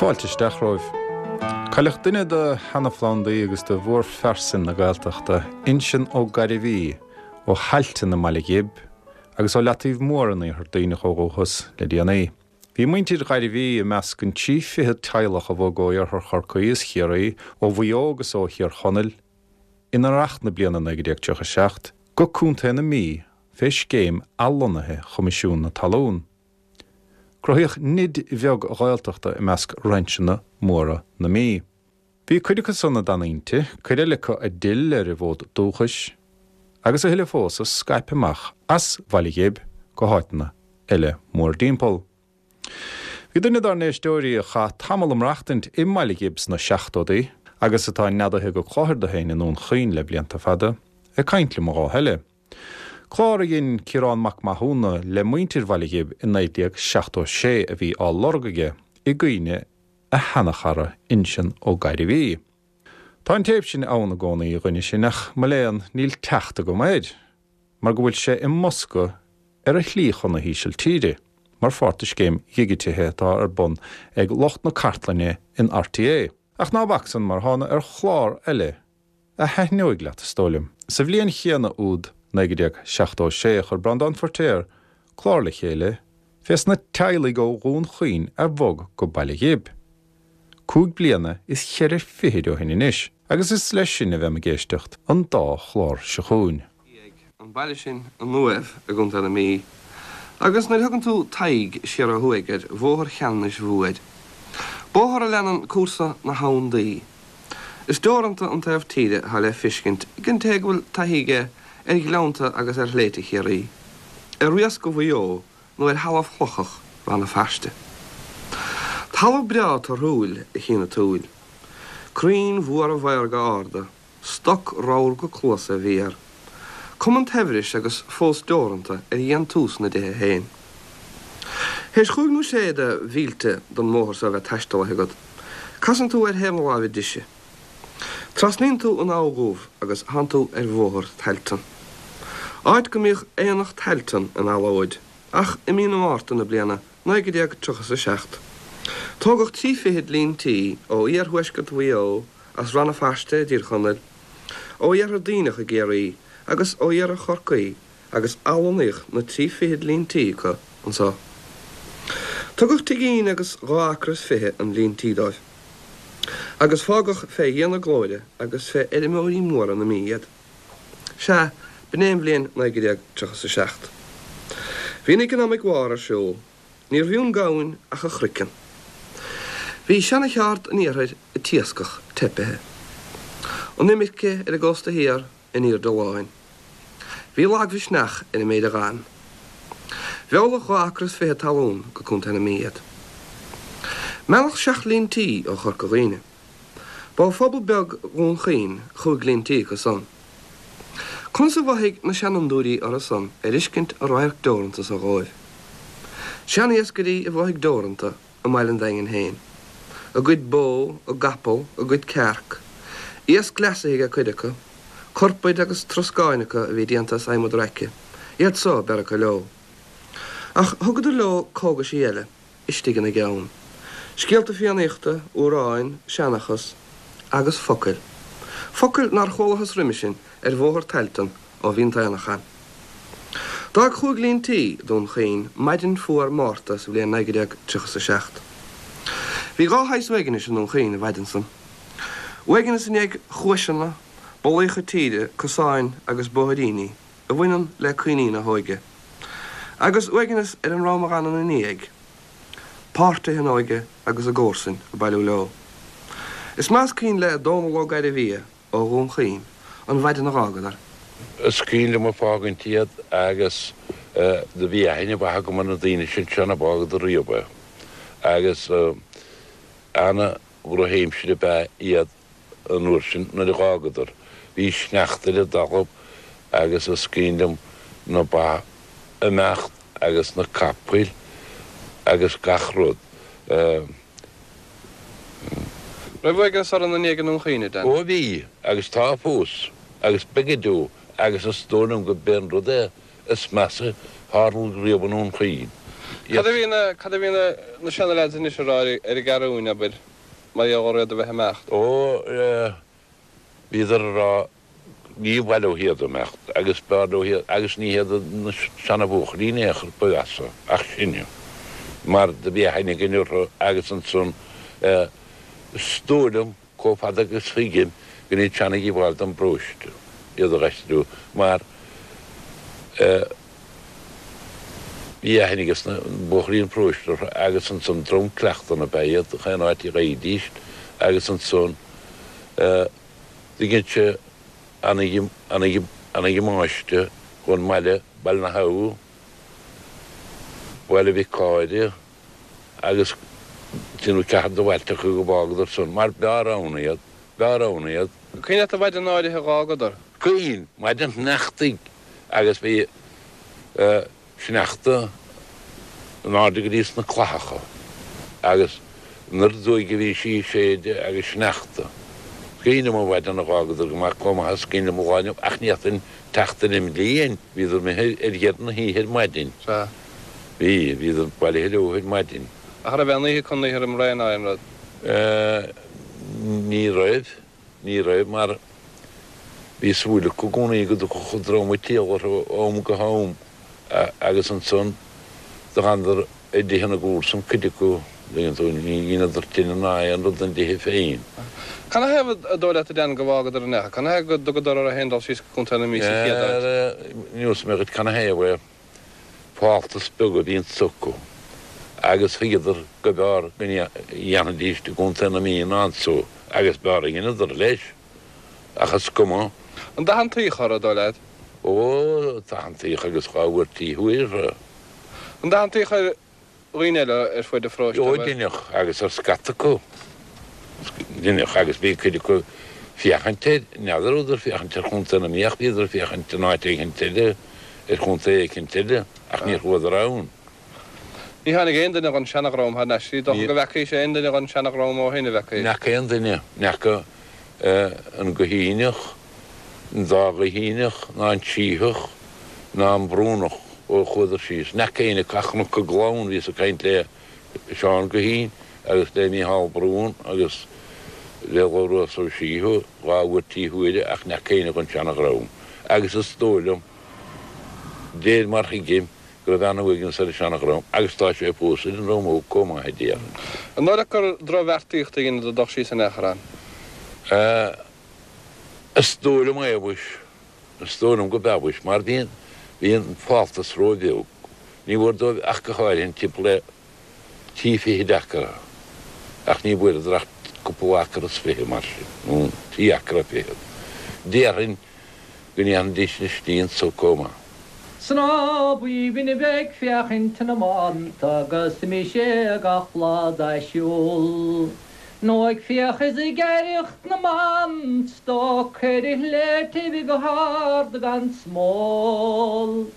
Fáilte isteach romhaibh. Cailleadh duine de sheana-phlandaí agus de mhórphearsain na Gaeltachta, Uinseann Ó Gairbhí, ó Thailtean i mBaile Ghib agus ó Leataobh Mór in Iarthar Duibhneach ó dhúchas, le déanaí. Bhí muintir Ghairbhí i measc an 23 teaghlach a bhog ó Iarthar Chorcaí is Chiarraí, ó Mhaigh Eo agus ó Thír Chonaill, in Earrach na bliana 1937, go Contae na Mí fé scéim athlonnaithe Choimisiún na Talún. Cruthaíodh nid bheag Ghaeltachta i measc rainseanna móra na Mí. Bhí cuid acu san a d'fhan inti, cuid eile acu a d'fhill ar a bhfód dúchais, agus a thuilleadh fós a scaip amach as Bhaile Ghib go háiteanna eile mórdtimpeall. Bhí duine dár n-éisteoirí a chaith tamall ag maireachtaint i mBaile Ghib sna seachtóidí, agus atá neadaithe go Clochar do féin i nDún Chaoin le blianta fada, ag caint liom an lá eile. Clár a dhein Ciarán Mac Mathúna le muintir Bhaile Ghib i 1976 a bhí á lorg aige i gcuimhne a sheanachara Uinseann Ó Gairbhí. Tá an téip sin ann i gcónaí, a dhuine sin, ach mo léan níl teacht agam air mar go bhfuil sé i mbosca ar a shlí chun na hÍsiltíre mar pháirt de scéim dhigitithe atá ar bun ag lucht na cartlainne in RTÉ. Ach ná bac san mar thána ar chlár eile a thaitneoidh leat, is dóigh liom. Sa bhliain chéanna úd, 1976, chuir Breandán Feiritéar clár le chéile fés na teaghlaigh ó Dhún Chaoin a bhog go Baile Ghib, cúig bliana is cheithre fichid ó shin anois, agus is leis sin a bheam ag éisteacht an dá chlár seo chugainn. An baile sin an Uaimh i gContae na Mí, agus nuair a thugann tú t'aghaidh siar ó thuaidh ar Bhóthar Cheanannais Mhóir, bóthar a leanann cúrsa na hAbhann Duí, is deoranta an taobh tíre atá le feiscint ag an té go bhfuil taithí aige ar ghleannta agus ar shléibhte Chiarraí, ar riasca Mhaigh Eo nó ar thalamh chlochach Rann na Feirste. Talamh breá torthúil a chíonn an tsúil. Crainn mhóra mhaorga arda, Stoc ramhar go cluasa a bhí air. Cuma an tsaibhris agus fós deoranta ar dhéantús na dtithe féin. Théis chúig nó sé de mhílte den mbóthar so a bheith taistealaithe agat, casann tú ar thaobh na láimhe deise. Trasnaíonn tú an Abha Dhubh agus thánn tú ar bhóthar Tailteann. Áit go mbíodh Aonach Tailteann in allóid, ach i mí na Márta na bliana 1937, tógadh trí fichid líon tí ó iarthuaisceart Mhaigh Eo, as Rann na Feirste i dTír Chonaill, ó Iarthar Duibhneach i gCiarraí agus ó Iarthar Chorcaí agus athlonnaíodh na trí fichid líon tí acu anso. Tugadh tigín agus dhá acra is fiche an líon tí dóibh agus fágadh fé Dhia na glóire agus fé fheirmeoirí móra na Mí iad. Sea, b'in é an bhliain 1937. Bhí an eaconómic war ar siúl. Níorbh fhiú an gamhain ach a chroiceann. Bhí seana-cheárd an iarthair ag t-iascach teipithe. An imirce ar an gcósta thiar in aoirde láin. Bhí lagmhisneach ar an méid a dh'fhan. Mheallfadh dhá acra is fiche talún go Contae na Mí iad. Mealladh seacht líon tí ó Chorca Dhuibhne. Ba ó phobal beag Dhún Chaoin chúig líon tí acu san. Conas a mhothaigh na seanfhondúirí orthu san ar fheiscint an radharc deoranta so dhóibh? Sean-iascairí a mhothaigh deoranta i mbaile an Daingin féin. A gcuid bó, a gcapall, a gcuid cearc. Iasc leasaithe ag cuid acu. Corpaid agus troscáin acu a bhí déanta as adhmad raice, iad so a b'fhearr acu leo. Ach thugadar leo cógaisí eile. istigh ina gceann. Scéalta Fiannaíochta, amhráin, seanchas, agus focail. Focail nár chualathas roimhe sin ar bhóthar Tailteann ó bhí an t-aonach ann. D'fhág chúig líon tí Dún Chaoin maidin fuar Márta sa bhliain 1937. Bhí dhá shaghas uaignis i nDún Chaoin an mhaidin san. Uaigneas i ndiaidh chuaiseanna, bolaíocha tíre, cosáin agus bóithríní a bhaineann le cuimhní na hóige. Agus uaigneas ar an ndream a dh'fhan ina ndiaidh, páirtithe a n-óige agus a gcomharsain ag bailiú leo. Is maith is cuimhin le Dónall Ó Gairbhia ó Dhún Chaoin an mhaidin a dh'fhágadar. Is cuimhin liom ag fágaint iad agus do bhí aithne mhaith agam ar na daoine sin seo ná fágadar riamh é agus ana dhrochaimsir ab ea iad an uair sin nuair a dh'fhágadar. Bhí sneachta ar an dtalamh agus is cuimhin liom na ba ag imeacht agus na capaill agus gach rud. Raibh uaigneas orainn i ndiaidh i nDún Chaoin, a Dan? Ó bhí, agus tá fós, agus beidh go deo, agus is dóigh liom go b'é an rud é is measa a tharla riamh i nDún Chaoin. Cad a bhí na, cad a bhí na, na seana-leaids anois a rá ar an gCeathrúin, abair, mar gheall ar iad a bheith ag imeacht? Ó, bhíodar a rá, ní mhaith leo iad a imeacht agus b'fhearr leo iad, agus ní hiad na seana-bhuachaillí in aon chor ba mheasa ach sinne, mar do bhí aithne againn orthu agus ansan, is dóigh liom, Chomh fada agus thuigim go ndeineadh siad ana-dhíobháil don bparóiste iad a dh'aistriú mar bhí aithne ages na buachaillí an pharóiste orthu agus ansan dream cleachtanna ab ea iad chaon áit a gheibhidís agus ansan do dhein sé ana-dhamáiste dhon mbaile, Baile na hAbha, Baile Mhic Cáire. agus trí nó ceathair de bhailte acu go bhfágadar san, mar b'fhearr ann iad, b'fhearr ann iad. Cuimhin leat an mhaidin áirithe a dh'fhágadar? Cuimhin, maidin shneachtaidh agus bhí sneachta in airde go dtí sna clathacha agus an oiread uaighe a bhí sí ag séideadh agus sneachta. Is cuimhin liom an mhaidin a dh'fhágadar go maith, chomh maith is cuimhin liom an lá inniu, ach ní fhéadfainn teacht ar an mbliain, bhíodar imithe ar dheireadh na hoíche ar maidin. Sea. Bhí, bhíodar bailithe leo ar maidin. Ach raibh aon oíche acu an oíche roimh ré ná aon rud? Ní raibh, ní raibh mar bhí súil acu i gcónaí go dtiocfadh an dream ag triall orthu ó am go ham agus ansan do dh'fhanadar i dtithe na gcomharsan, cuid acu, tuigeann tú, ní dheineadar tine ná aon rud ina dtithe féin. Canathaobh an dóigh leat a Dan go bhfágadar an each? Canathaobh go dtugadar orthu féin dul síos go Contae na Mí sa chéad áit? Neosfaidh mé dhuit canathaobh é. Fáltas beag a bhí acu agus thuigeadar go mb'fhearr go ndéanfaidís i gContae na Mí ná anso agus b'fhearr a dheineadar, leis. Ach is cuma. An dathantaíodh orthu, an dóigh leat? Ó, dathantaíodh agus dhá bhfuairtí thiar orthu. An dathantaíodh ar dhaoine eile ar fuaid an pharóiste, Ó, deineadh, agus ar scata acu. Deineadh, agus bhí cuid acu ag féachaint air, n'fheadar rabhadar ag féachaint ar Chontae na Mí ach bhíodar ag féachaint in áit éicint eile, ar chontae éicint eile, ach níor chuadar ann. Ní tháinig aon duine dhon seanadhream thar n-ais. Ní dócha go bhfeacaís aon duine dhon seanadhream ó shin, a bhfeacaís? N'fheaca aon duine, n'fheaca an Guithíneach, an dá Ghuithíneach, ná an Sítheach, ná an Brúnach ó chuadar síos. N'fheaca éinne acu ach Cnoc an Gleann, bhíos ag caint le Seán Guithín agus le Mícheál Brún agus le Labhrás Ó Síthigh dhá bhfuairtí huaire ach n'fheaca éinne dhon seanadhream. Agus is dóigh liom, déir mar thuigim, go raibh ana-uaigneas ar an seanadhream agus tá sé fós ar an ndream óg comh maith, a déarfainn. An dóigh leat gur drochbheartaíocht a dheineadar dul síos in aon chor ann? Is dóigh liom é, mhuis. Is dóigh liom go b'ea, mhuis, mar bhí an, bhí an fáltas ró-bheag. Ní bhfuair dóibh ach go háirithe timpeall le trí fichid acra, ach ní bhfuaireadar ach cúpla acra is fiche mar sin, nó trí acra fichead. Déarfainn go ndéanfaidís an slí anso comh maith. 'S ná b'aoibhinn a bheith ag féachaint na mbanta agus mise gach lá dá siúl, Nó ag fiach is ag aireacht na mban stoc ar a shléibhtibh go hard gan smól.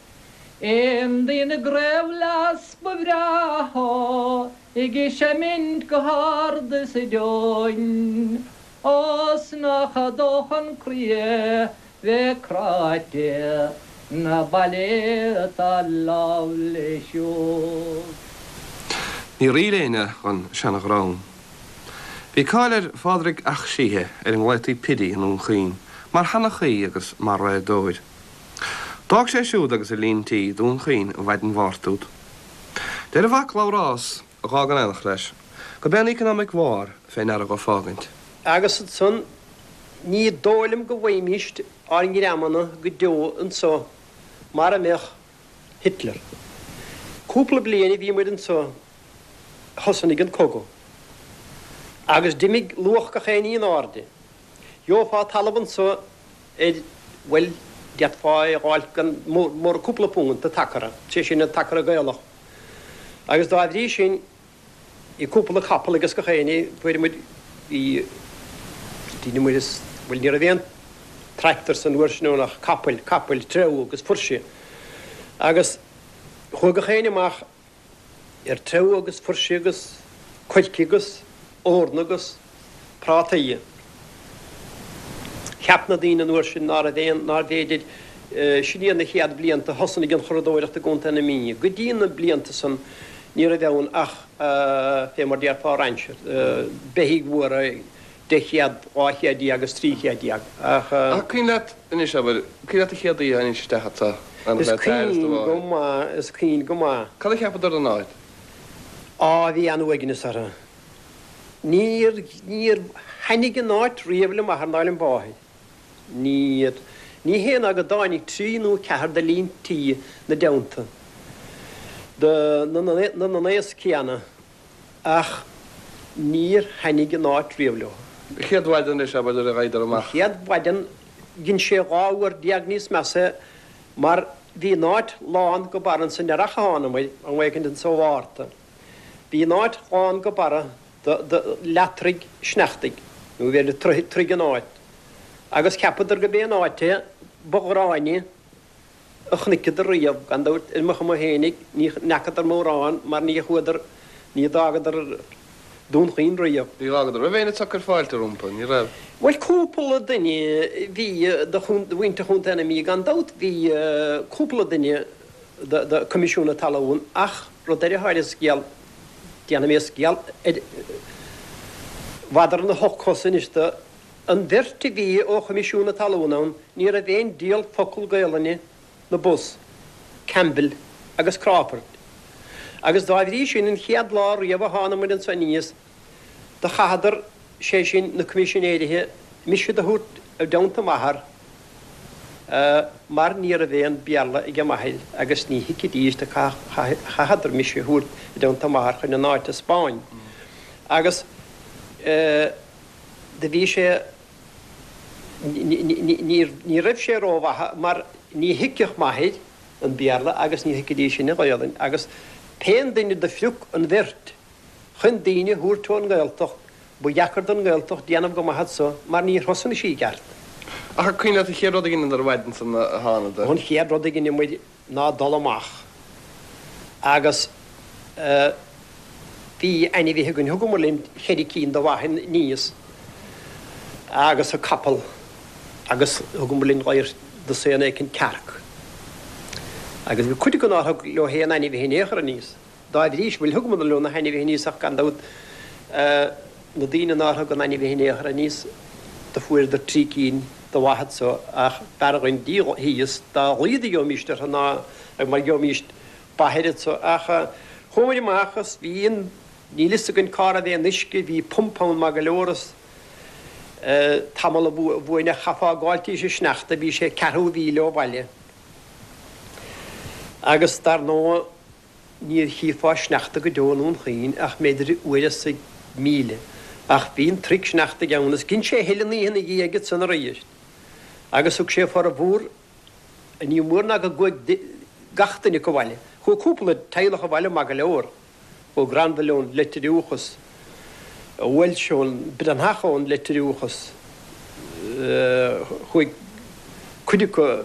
Aon duine i gcraobhghlas ba bhreátha ag seimint go hard is aduain. Ó 's nach dócha an croí é bheith cráite 'na baile atá lámh le siúd. Níor fhill éinne dhon seanadhream. Bhí cáil ar Phádraig 'Ac Síthigh, ar a nglaotaí Piddy i nDún Chaoin, mar sheanchaí agus mar raodóir. D'fhág sé siúd agus a líon tí Dún Chaoin an mhaidin Mháirt úd. Deir a mhac Labhrás, a dh'fhág in éineacht leis, gurb é an economic war fé ndeara dhó fágaint. Agus ansan, ní dóigh liom go bhfaighimíst ár ngreamanna go deo anso mara mbeadh Hitler. Cúpla bliain a bhí muid anso thosnaigh an cogadh. Agus d'imigh luach gach aon ní in airde. Gheofá talamh anso ar, bhuel, d'fhéadfá é a dh'fháilt gan mórán cúpla punt an t-acra, sé sin an t-acra Gaelach. Agus dá bhrí sin, bhí cúpla capall ages gach éinne, fuair muid, bhí, deineadh muid is, bhuel ní raibh aon tractor san uair sin ann ach capaill, capaill, treabhadh agus fuirse. Agus chuaigh gach éinne amach ar treabhadh agus fuirse agus coirce agus eorna agus prátaí. Cheap na daoine an uair sin ná raibh aon, nárbh fhéidir, sin iad na chéad bhlianta a thosnaigh an churadóireacht i gContae na Mí. Go dtí na blianta san. Ní raibh ann ach, fé mar déarfá rainsear, beithígh mhóra, 10 chéad, 12 chéad agus 13 chéad, ach. Ach cuimhin leat anois, abair, cuimhin leat an chéad oíche a tháinís isteach anso, an Is le t'athair is do cuimhin go mháthair? maith, is cuimhin go maith. Cad a cheapadar den áit? Á, bhí an-uaigneas orthu. Níor, níor thaitnigh an áit riamh le m'athair ná le máthair. Níor. Ní hé ná go dtáinig trí nó ceathair de líon tí 'na dteannta, de na n-aos céanna, ach níor thaitnigh an áit riamh leo. An chéad mhaidin anois, abair, nuair a ghabhadar amach. An chéad mhaidin, dhein sé 12 uair níos measa mar bhí an áit lán go barra ansan earrach a thánamair, am éicint anso Mhárta. Bhí an áit lán go barra de leath-troigh sneachtaidh, nó b'fhéidir troigh an áit, agus cheapadar go b'é an áit é ba ghráinne a chonaiceadar riamh. Gan dabht, ar mo chuma fhéinig, ní fheacadar mórán mar ní chuadar, ní d'fhágadar Dún Chaoin riamh. Ní dh'fhágadar. Raibh éinne ag cur fáilte rompu? Ní raibh. Bhuel, cúpla duine bhí de mhuintir Chontae na Mí, gan dabht bhí cúpla duine de Choimisiún na Talún ach rud ar an scéal, Déanfaidh mé scéal ar mhadra na hocht gcos anois de. An bheirt a bhí ó Choimisiún na Talún ann, ní raibh aon diabhal focal Gaelainne 'na bos, Campbell agus Crawford. Agus dá bhrí sin, an chéad lá riamh a thánamair anso aníos, do chaitheadar, sé sin, na Coimisinéirithe, mise do thabhairt i dteannta m'athar, mar ní raibh aon Bhéarla ag m'athair agus ní thuigfidís do chaitheadar mise a thabhairt i dteannta m'athar chun an áit a 'speáin. Agus do bhí sé, ní raibh sé rómhaith mar ní thuigfeadh m'athair an Béarla agus ní thuigfidís sin an Ghaolainn agus pén duine do phrioc an bheirt chun daoine a thabhairt ón nGaeltacht, ba dheacair don nGaeltacht déanamh go maith anso mar níor thosnaigh sí i gceart. Ach an cuimhin leat an chéad rud a dheineadar an mhaidin san a thánadar? An chéad rud a dheineamair ná dul amach agus bhí ainmhithe againn, thugamar linn cheithre cinn de bha aníos agus an capall agus thugamar linn dosaen éicint cearc. Agus bhí cuid acu nár thug leo aon ainmhithe in aon chor aníos. Dá bhrí sin, bhuel, thugamar leo na hainmhithe aníos ach gan dabht na daoine nár thug an ainmhithe in aon chor aníos, do fuaireadar trí cinn de bha anso ach b'fhearr dhuinn díol thíos dá laghad a gheobhaimíst orthu ná mar gheobhaimíst ba anso. Ach chuamair amach is bhí an, níl fhios againn cá raibh aon uisce, bhí pumpa ann maith go leor is tamall uainn ach chaithfeá gabháil tís an sneachta, bhí sé ceathrú mhíle ó bhaile. Agus dar ndóigh Níor chífeá sneachta go deo i nDún Chaoin ach mb'fhéidir uair as 1,000. Ach bhí an troigh sneachtaidh ann is dhein sé a thuilleadh an oíche ina dhiaidh ansan arís. Agus thug sé formhór, ní mór ná go gcuaigh gach duine acu abhaile. Chuaigh cúpla teaghlach abhaile maith go leor. Chuaigh Granville ón Leitir Iúchas. Walsh ón Breathnach ón Leitir Iúchas. Chuaigh cuid acu,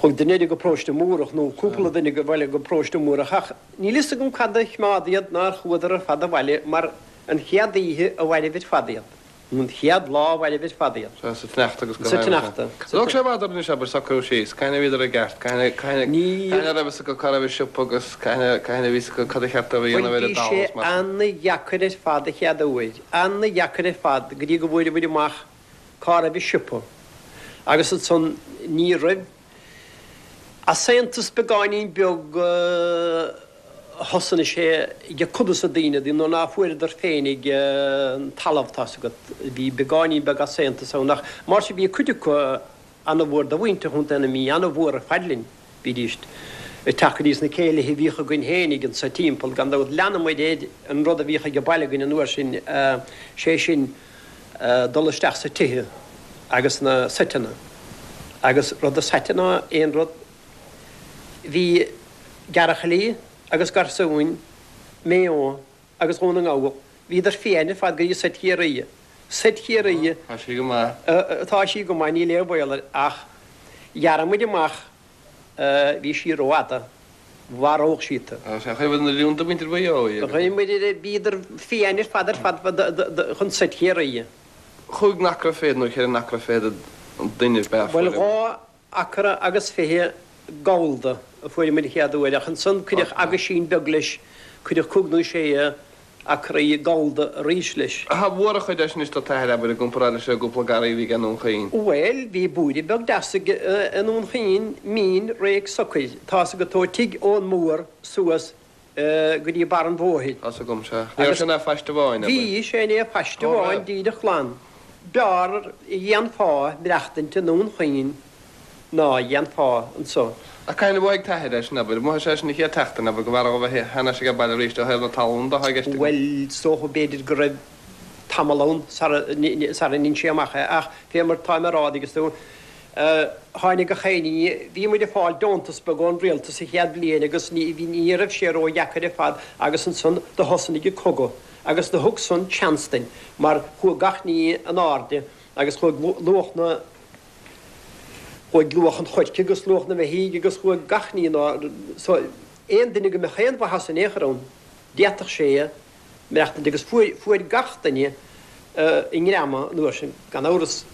chuaigh duine eile go Paróiste Múrach nó cúpla duine abhaile go Paróiste Múrach ach níl fhios agam cad a choimeád iad nár chuadar ar fad abhaile mar an chéad oíche a mhairbh ar fad iad. Nó an chéad lá a mhairbh ar fad iad. Sea, sa tsneachta agus go Sa tsneachta. Thóg sé i bhfad orainn anois, abair, socrú síos. Cathain a bhíodar i gceart? Cathain a, cathain a, cathain a raibh fhios acu cá raibh an siopa agus cathain a, cathain a bhí fhios acu cad a cheart dóibh a dhéanamh ar an Bhuel, bhí dtalamh sé is mar sin. ana-dheacair ar fad an chéad uair. Ana-dheacair ar fad go dtí go bhfuaireamar amach cá raibh an siopa. Agus ansan ní raibh easaontas beagáinín beag thosnaigh sé ag cuid de na daoine nuair ná fuaireadar féinig an talamh tá's agat. Bhí beagáinín beag easaontas ann ach mar sin bhí cuid acu ana-mhór de mhuintir Chontae na Mí, ana-mhór ar fad linn. Bhídís ag teacht go dtí sna céilithe a bhíodh againn fhéinig anso timpeall. Gan dabht leanamair ar an rud a bhíodh ag baile againn an uair sin, sé sin dul isteach sa tithe agus na seiteanna. Agus rud is aite ná aon rud, bhí gearrchailí agus garsúin Maigh Eo agus Dhún na nGall, bhíodar fiáin ar fad go dtí seit Chiarraí. Seit Chiarraí. Tá sí go maith. Tá sí go maith, níl aon bhaol air ach ghearr muid amach, bhí sí rófhada, mharódh sí tú. Sea, chuir muid na liúnta muintir Mhaigh Eo í agus. Chuir muid, bhíodar fiáin ar fad ar fad chun seit Chiarraí. Chúig n-acra fichead nó cheithre n-acra fichead an duine ab ea Bhuel, 2 acra agus 20 gabhalda. a fuair muid an chéad uair ach ansan cuireadh aguisín beag leis, cuireadh cúig nó sé acraí gallda arís leis. Cha mhór an chuid é sin anois do t'athair, abair, i gcomparáid leis an gcúpla garraí a bhí aige i nDún Chaoin. Bhuel, bhí búire beag deas aige i nDún Chaoin, mín, réidh socair. Tá's agat ó tigh Eoin Mór suas go dtí barr an bhóthair. Tá's agam, sea. Ní raibh sé ina phaiste amháin, abair. Bhí sé ina phaiste amháin díreach glan. B'fhearr a dhéanfá maireachtaint i nDún Chaoin ná a dhéanfá anso. Ach cathain a mhothaigh t'athair é sin, abair? Mhothaigh sé é sin an chéad tseachtain, abair, go mb'fhearr dhó bheith thar n-ais age baile arís ó thaobh na talún de, atá i gceist agam. Bhuel, is dócha, b'fhéidir go raibh tamall ann sara ndein sé amach é, ach fé mar táim a rá, an dtuigeann tú, tháinig gach aon ní, bhí muid ag fáil deontas beag ón rialtas sa chéad bhliain agus ní, ní raibh sé ró-dheacair ar fad agus ansan do thosnaigh an cogadh agus do thug san seans duinn mar chuaigh gach ní in airde agus chuaigh luach na, Chuaigh luach an choirce agus luach na mbeithígh agus chuaigh gach ní in airde so aon duine go mbeadh aon mhaitheas in aon chor ann d'fhéadfadh sé maireachtaint agus fuair, fuair gach duine a ngreama an uair sin. Gan amhras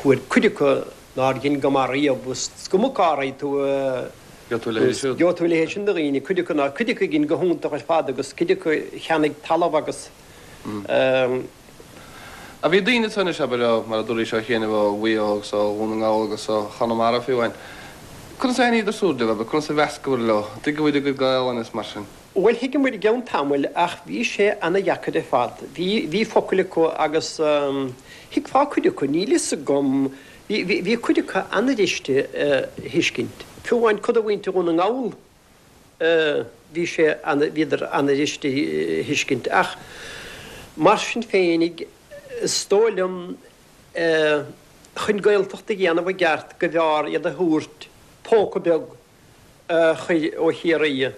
fuair cuid acu nár dhein go maith riamh is cuma cá raibh tú Gheobhaidh tú a leithéid siúd. Gheobhaidh tú a leithéid sin de dhaoine, cuid acu nár, cuid acu a dhein go hiontach ar fad agus cuid acu a cheannaigh talamh agus. Ach bhí daoine ansan anois, abair, ó, mar a dúraís, ó chianaibh, ó Mhaigh Eo agus ó Dhún na nGall agus ó Chonamara fiú amháin. Conas a thaitníodar siúd libh, abair, conas a mheascabhair leo? An dtuigeabhair a gcuid Gaelainne is mar sin? Bhuel, thuigeamair i gceann tamaill ach bhí sé ana-dheacair ar fad. Bhí, bhí focail acu agus thuigfeá cuid acu, níl fhios agam, bhí, bhí, bhí cuid acu ana-bhriste a thuiscint. Fiú amháin cuid de mhuintir Dhún na nGall bhí sé ana, bhíodar ana-bhriste a thuiscint. Ach mar sin féinig, is dóigh liom, chun Gaeltacht a dhéanamh i gceart go mb'fhearr iad a thabhairt póca beag a chur ó Chiarraí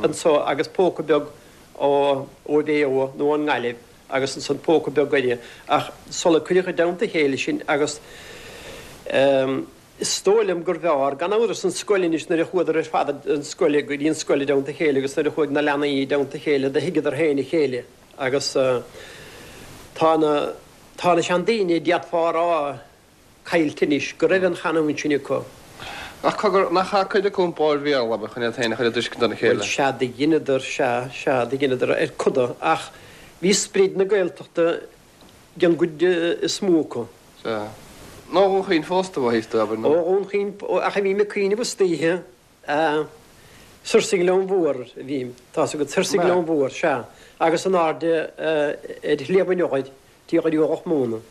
anso agus póca beag ó Mhaigh Eo nó ón nGaillimh agus ansan póca beag uirthi. Ach sula cuireadh i dteannta a chéile sin agus. Is dóigh liom gur bhfearr, gan amhras, an scoil anois nuair a chuadar ar fad an scoil, go dtí an scoil i dteannta a chéile agus nuair a chuaigh na leanaí i dteannta a chéile do thuigeadar féin a chéile agus tá na, tá na seandaoine, d'fhéadfá a rá, caillte anois, go raibh an chanúint sin acu. Ach cogar, nach chaith cuid acu an Bhéarla, abair, chun iad féin a chur i dtuiscint dona chéile? Bhuel, sea, do dheineadar, sea, sea, do dheineadar ar coda ach bhí sprid na Gaeltachta den gcuid is mó acu. Sea. Nó Dhún Chaoin fosta, mhothaíos tú, abair, nó. Ó Dhún Chaoin, ach a bhím ag cuimhneamh istoíche, soir sa Ghleann Mhór a bhím, tá's agat, soir sa Ghleann Mhór, sea, agus in airde ar Shliabh an Eochair, Tí Dhraoi Móna,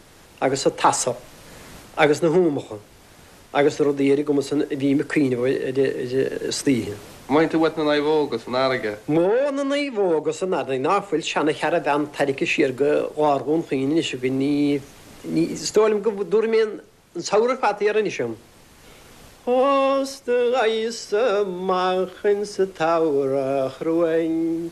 agus an t-asal, agus na húmacha. Agus na rudaí ar an gcuma san a bhím ag cuimhneamh air istoíche. Mothaíonn tú uait na naomhóga san fharraige. Ó, na naomhóga san fharraige, ná fuil seana-charavan tarraicthe siar go lár Dhún Chaoin anois againn, ní, ní, is dóigh liom go dtabharfaidh mé an samhradh ar fad thiar anois ann. Thosnaigheas amach insa tsamhradh chruain,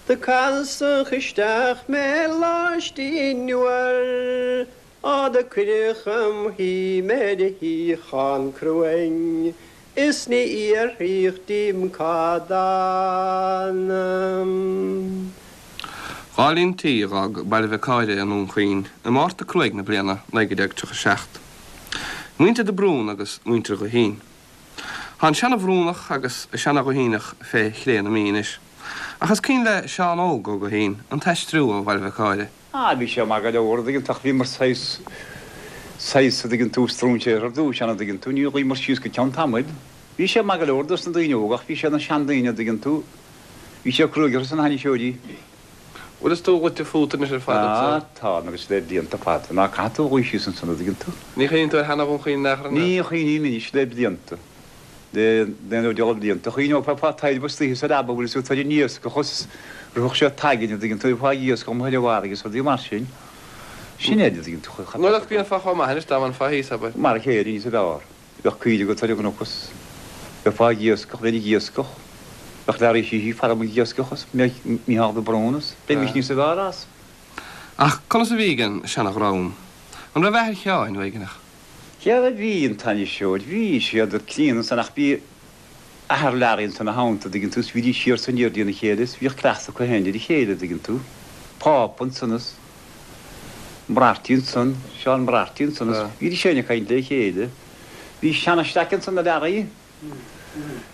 Do casadh isteach mé laistigh uair. Á do cuireadh im shuí mé ar shuíochán cruain is ní fhiafraíodh díom cá dtána. Dhá líon tí a dh'fhág Baile Mhic Cáire i nDún Chaoin i Márta Cruaidh na bliana 1937. Muintir de Brún agus muintir Ghuithín. Tá an seana-Bhrúnach agus an seana-Ghuithíneach fé chré na Mí anois. Ach is cuimhin le Seán Óg Ó Guithín an t-aistriú ó Bhaile Mhic Cáire. Ah, bhí sé maith go leor, a' dtuigeann tú, ach bhíomar saghas, saghas, a' dtuigeann tú, stróinséartha ar dtúis ann, a' dtuigeann tú, níor luíomar síos go ceann tamaill. Bhí sé maith go leor dos na daoine óga ach bhí sé na seandaoine, a' dtuigeann tú, bhí sé cruaidh orthu san ainniseoirí. Bhfuil fhios tú luite fút anois ar fad anso? Ah, tá, agus le blianta fada. Ná caithfidh tú a luí síos ansan, a' dtuigeann tú. Ní chuimhníonn tú ar sheana-Dhún Chaoin in aon chor, an ea? Ní chuimhním anois le blianta. Le naoi nó deich blianta. Chuimhneofá fá taidhreamh istoíche sa leaba bhfuil fhios agat ar an iascach is rithfeadh sé againn a dtuigeann tú fá iascach amuigh ar an bhfarraige is rudaí mar sin. Sin é a dtuigeann tú. Nuair a bhíonn fá chomh maith anois dá mbainfeá thíos, abair. Mar a chéile níos fearr. Bheadh coill agat ar an gcnoc is bheifeá ag iascach, bheinn ag iascach. Bheadh Learaí Sheehy ag faire ag iascach is Mícheál de Brún is bheimis níos fearr as. Ach conas a bhí ag an seana-dhream? An raibh athair Sheáin uaigneach? Dhera bhí an t-ainniseoir, bhí siad críonna ansan ach bhí athair Learaí ansan ina theannta, a dtuigeann tú, is bhídís siar is aniar dtína chéile is bhíodh cleachtadh acu féin ar a chéile, a dtuigeann tú. Pápa ansan is Moriarty ansan, Seán Moriarty ansan is bhídís féin ag caint le chéile. Bhí seana-shleaic ansan do Learaí.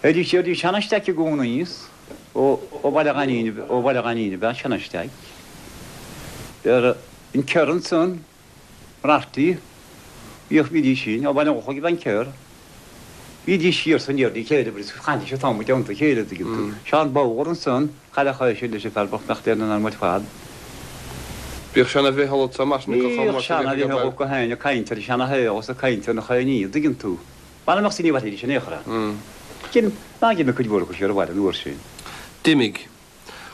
Théidís siar dtí seana-staic i gcónaí is ó Bhaile Ghainín, ó Bhaile Ghainín ab ea seana-staic. Ar an Kerr ansan, Rafty, bhíodh, bhídís sin, ó Bhaile an Lochaigh ab ea an Kerr. Bhídís siar is aniar dá chéile agus chaithidís an t-am i dteannta a chéile, an dtuigeann tú. Seán Bodhar ansan, chailleadh é sin leis an bhfear bocht nach dtéann in arm ar fad. Bhíodh seana-Mhicheál anso mar sin go chomh maith Bhíodh seana-Mhicheál go haon ag caint ar an seana-shaol is ag caint ar na chaoiní, an dtuigeann tú. Mar a mbeadh ní mhairfidís in aon chor ann. Cinn ná d'imigh cuid mhór acu siar abhaile an uair sin. D'imigh.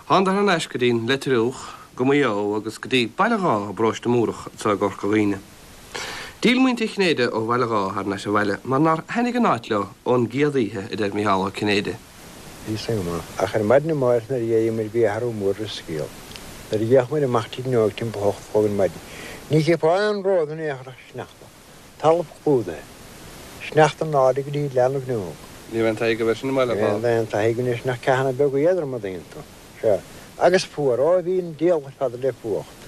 Thánadar thar n-ais go dtí'n Leitriúch, go Maigh Eo agus go dtí Baile Dháith i bparóiste Múrach anso i gCorca Dhuibhne. D'fhill muintir Chinnéide ó Bhaile Dháith thar n-ais abhaile mar nár thaitnigh an áit leo ón gcéad oíche, a deir Micheál Ó Cinnéide. Bhí san go maith. Ach ar maidin amáireach nuair a d'éirigh muid bhí athrú mór ar an scéal. Nuair a d'fhéach muid amach tríd an fhuinneog timpeall a hocht a chlog ar maidin, ní chífeá aon ród in aon chor ach sneachta. Talamh clúdaithe. Sneachta in airde go dtí leath na bhfuinneog. Ní raibh aon taithí agaibh air sin i mBaile Ní raibh aon taithí againn air sin ach ceathanna beaga éadroma an dtuigeann tú. Sea. Agus fuar. Ó, bhí an diabhal ar fad le fuacht.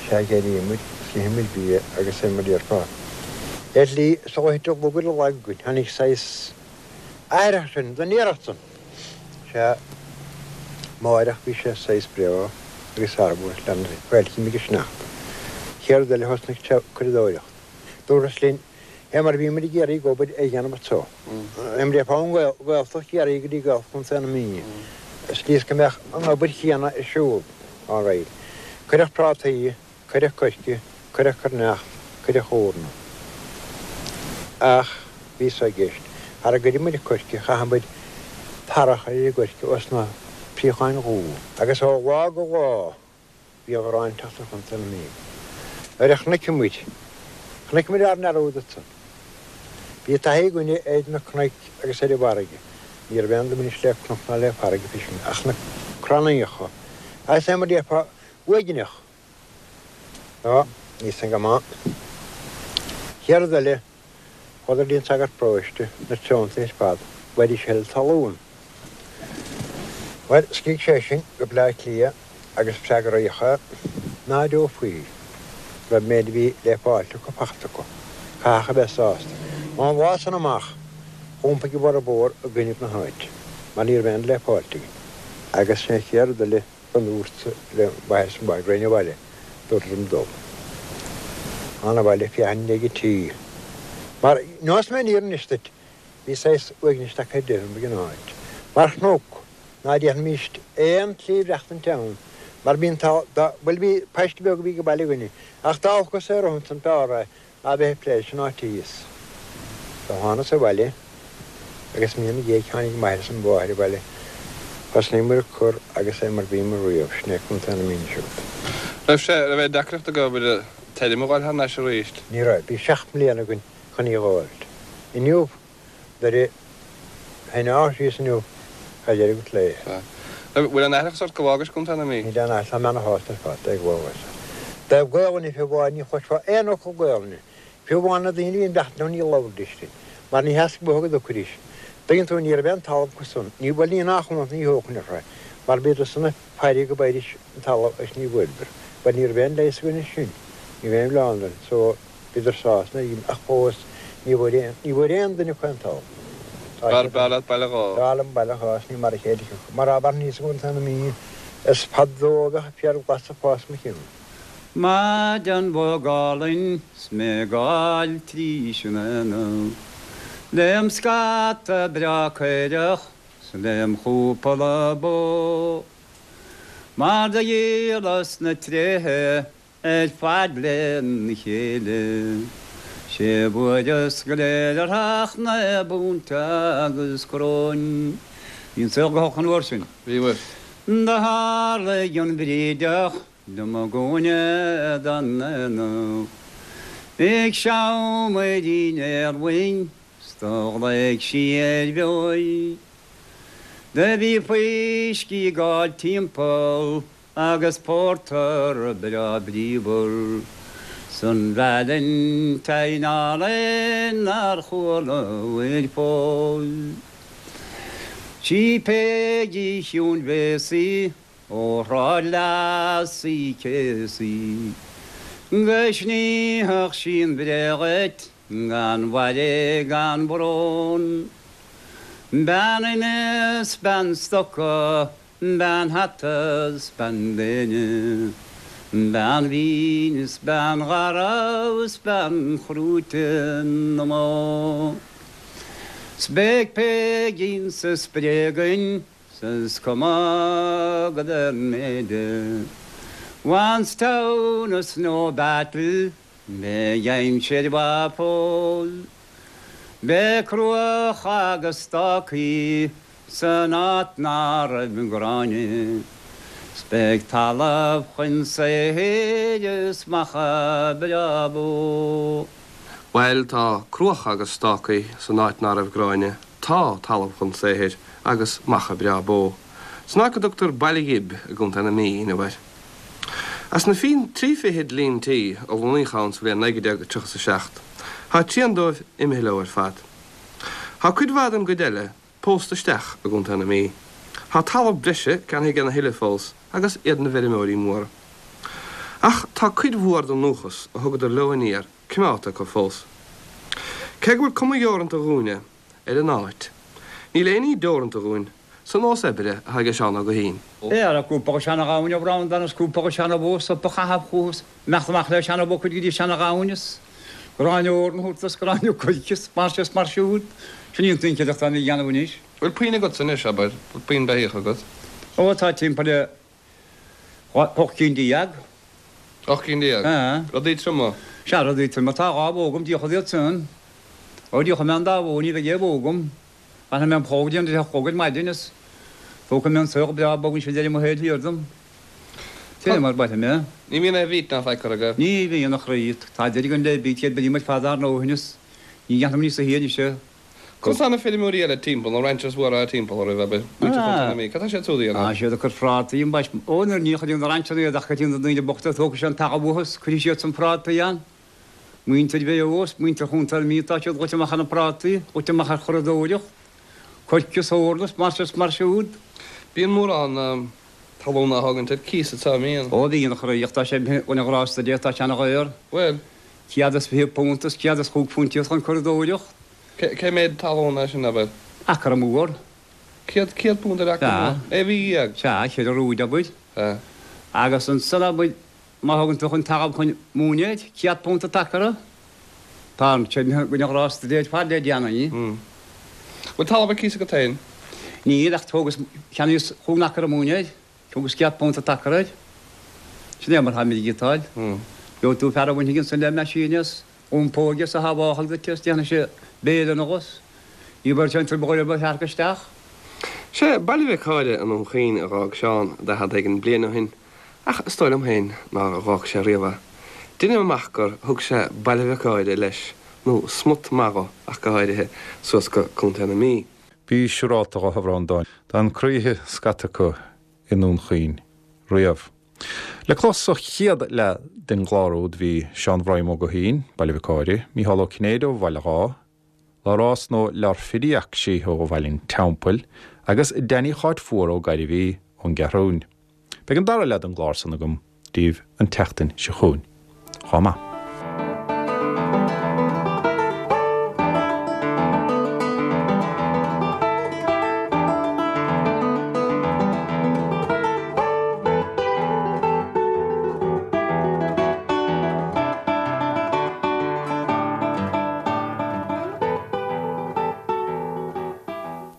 Sea, d'éirigh muid, is d'ith muid bia agus é mar a déarfá. Ar shlí, sular thit an lug ar an lag againn, tháinig saghas athraitheach sin, don iarracht san. Sea, amáireach bhí sé saghas breá agus arbhar lena bhfailchím ag an sneachta. Chéad rud eile thosnaigh sé curadóireacht. Dúras linn, fé mar a bhí muid ag iarraidh obair a dhéanamh anso. Fé mar a déarfá ón Ghaeltacht Chiarraí go dtí Gaeltacht Chontae na Mí. Slí is go mbeadh an obair chéanna ar siúl. All right. Cuireadh prátaí. Cuireadh coirce, cuireadh coirneacht, cuireadh eorna. Ach bhí so i gceist. Thar a gcuireadh muid coirce, chaitheadh muid tarra a chur ar an gcoirce os na príocháin dhubha. Agus ó lá go lá bhí an ghráin ag teacht ar Chontae na Mí. Nuair a chonaic muid, chonaic muid ár ndearúd ansan. Bhí taithí againne ar na cnoic agus ar an bhfarraige. Ní raibh aon duine anois le cnoc ná le farraige fé sin ach na crannaíocha. Agus é mar a déarfá, uaigneach. Á, níl san go maith. Chéad rud eile, chuadar dtí an sagart paróiste, na tionóntaí ar fad, bhfuighidís a thuilleadh talún. Bhuel, scrígh sé sin go Bleá Cliath agus freagraíodh é, ná deofaí, go raibh an méid a bhí le fáilt acu fachta acu. Caithfeadh a bheith sásta. Ón lá san amach, dh'iompaigh a bhformhór i gcoinnibh na háite, mar ní raibh aon rud le fáilt againn. Agus sin an chéad rud eile. Go ndúrt le m'athair is mo mháthair go raghainn abhaile, dúradar liom dul. Thánag abhaile féachaint i ndiaidh an tí. Mar, neosfaidh mé an fhírinne anois duit, bhí saghas uaignis tagtha ar deireadh ag an áit. Mar chnoc, ná déarfaimíst aon tslí mhaireachtaint ann, mar bhí an t-ádh, dá, bhuel bhí paiste beag a bhí ag baile againne, ach dá olcas é romham san b'fhearr é ná bheith ag plé leis an áit thíos. Do thánas abhaile agus mí ina dhiaidh tháinig m'athair is mo mháthair abhaile. Thosnaíomar ag cur agus é mar bhíomar riamh, sin é Contae na Mí anois agat. Raibh sé, raibh aon deacracht agaibh an fheirm a dh'fháil thar n-ais arís? Ní raibh. Bhí seacht mbliana againn chun í a dh'fháilt. Inniu Nuair a shíneofá síos inniu, tá deireadh agat léi. Sea. Bhfuil aon aithreachas ort go bhfágais Contae na Mí? Níl aon aithreachas, tá mé ana-shásta ar fad é go bhfágas. I dtaobh Gaolainne fiú amháin, ní chloisfeá aon fhocal Gaolainne. Fiú amháin na daoine a bhí ag bleachtaint leo ní labhraidís linn, mar ní theastaigh uathu go dtiocfaidís. Tuigeann tú, ní raibh aon talamh acu san, ní, bhuel ní nach ionadh ní thógfainn orthu é, mar bhíodar san ag faire go bhfaighidís an talamh agus ní bhfuaireadar. Bhuel ní raibh aon leigheas againn air sin, ní raibh aon mhilleán orainn, so. Bhíodar sásta nuair a ach fós ní bhfuair aon, ní bhfuair aon duine acu aon talamh. Tá B'fhearr b'fhearr leat Baile Dháith. B'fhearr liom Baile Dháith is ní mar a chéile a thiocfadh. Mar dá mhairfinn thíos i gContae na Mí is fadó a bheadh féar glas ag fás mo chionn. Maidean bhog álainn 's mé ag gabháil trís an aonach Lem scata breá caorach 's lem chúpla bó Mar do dhíolas na tréithe Ar fad lena chéile. Sé bhfuaireas go léir ach naoi bpunt agus coróin. Bhí an saol go holc an uair sin. Bhí, bhuel. Do tharlaigh an bhrídeach liom i gcúinne den aonach Ag seamairín éarlainn 's do ghlaoigh sí ar bheoir. Do bhí fuiscí ag gabháil timpeall Agus pórtar breá bríomhar 's an Valentine álainn nár chualabhair fós. Sí Peigí Chiúin Bhéasaí ó Shráid Leas Uí Chéasaí go snífeadh sí an bhré dhuit. Gan bhaile gan brón. Bean ime 's bean stoca, bean hata 's bean léine, bean mhín 's bean gharbh 's bean chrúite na mbó. 'S beidh Peigín sa spré againn 's is cuma cad é an méid é. Once town is no battle. Beidh aimsir mhaith fós. Beidh cruach agus stácaí san áit ná raibh gráinne. 'S beidh talamh chun saothair is macha breá bó. Bhuel, tá cruacha agus stácaí san áit ná raibh gráinne, tá talamh chun saothair agus macha breá bó. San áit go dtugtar Baile Ghib i gContae na Mí inniu air. As na trí fichid líon tí a lonnaíodh ann sa bhliain 1937, tá trian dóibh imithe leo ar fad. Tá cuid mhaith den gcuid eile pósta isteach i gContae na Mí. Tá talamh breise ceannaithe ag a thuilleadh fós agus iad ina bhfeirmeoirí móra. Ach tá cuid mhór den ndúchas a thugadar leo aniar coimeádta acu fós. Cé go bhfuil cuma dheoranta dhúinne ar an áit, níl aon ní deoranta dhúinn sa nós oibre atá ag Seán Ó Guithín. Ara, cúpla go seana-ghamhain ó Bhreandán is cúpla go seana-bhó sop a chaitheamh chucu is imeacht amach le seana-bhó cuid go dtí seana-ghamhain is gráinne eorna a thabhairt is gráinne coirce is mar seo is mar siúd. Sin í an tsinceadacht atá mé a dhéanamh anois. Bhfuil puinn agatsa anois, abair? Bhfuil puinn beithíoch agat? Ó, tá timpeall le 18 cinn. 18 cinn? Sea. Rudaí troma? Sea, rudaí troma. Tá dhá bhó agam, díolfad iad san. Ó, díolfaidh mé an dá bhó, ní bheidh aon bhó agam. Bainfidh mé an plóg déanta de chlog ar maidin is tógfaidh mé an saol breá bog ansin deireadh mo shaoil thiar dom. Sin é mar bainfidh mé. Ní bhíonn aon bheet ná faic curtha aige. Ní bhíonn, a chroí. Tá deireadh againn le beet, d'oibrigh muid fad ár ndóthain is ní dhéanfaidh muid níosa thia anois é. Conas tá na feirmeoirí eile timpeall, na ranchers mhóra timpeall oraibh, abair, muintir Chontae na Mí, cad tá siad súd a dhéanamh? Tá siad ag cur prátaí ambaist. Ó, nuair ní chuireann na rancheanna iad ach go na daoine bochta tógfaidh siad an talamh uathu is cuirfidh siad san prátaí ann. Muintir Mhaigh Eo is muintir Chontae na Mí tá siad goite amach ar na prátaí, goite amach ar churadóireacht, coirce is eorna is mar seo is mar siúd. Bíonn mórán talún á thógaint ar cíos anseo, an mbíonn? Ó bhíonn, a chroí, ach tá sé imithe chun a ghrásta Dé, tá sé ana dhaor. Bhuel. £120 is £105 iad chun curadóireacht. Cé méad talún é sin, abair? Acra mór. £100 ar acra mór? Sea. 16 mhí. Sea, cheithre rúid, abair. Sea. Agus ansan, abair, Má thugann tú chun talamh chun móna iad, £100 an t-acra. Tá an sé imithe chun a ghrásta Dé ar fad le déanaí. Bhfuil talamh ar cíos agat féin? Níl, ach thógas, cheannaíos chúig n-acra móna air. Thugas £100 an t-acra air. Sin é mar táimid ag giotáil. Gheobhaidh tú fear a bhainfidh ansan le meaisín is iompóidh is a shábhálfaidh duit is déanfaidh sé béile anuas. Ní bheidh sé an trioblóid ar bith a shearc isteach. Sé Baile Mhic Háire i nDún Chaoin a dh'fhág Seán daichead éigin bliain ó shin. Ach is dóigh liom féin nár dh'fhág sé riamh é. Deinim amach gur thug sé Baile Mhic Háire leis, nó smut maith dho ach go háirithe, suas go Contae na Mí. Bí siúrálta dho, a Bhreandáin. D'fhan croíthe scata acu i nDún Chaoin riamh. Le clos sa chéad leath den gclár úd bhí Seán Bhroim Ó Guithín, Baile Mhic Háire, Mícheál Ó Cinnéide ó Bhaile Dháith, Labhrás nó Lárfiriacsí ó Bhaile an Teampaill agus Danny Cháit Fuar Ó Gairbhí ón gCeathrúin. Beidh an dara leath den gclár san agam daoibh an tseachtain seo chugainn. Chomh maith.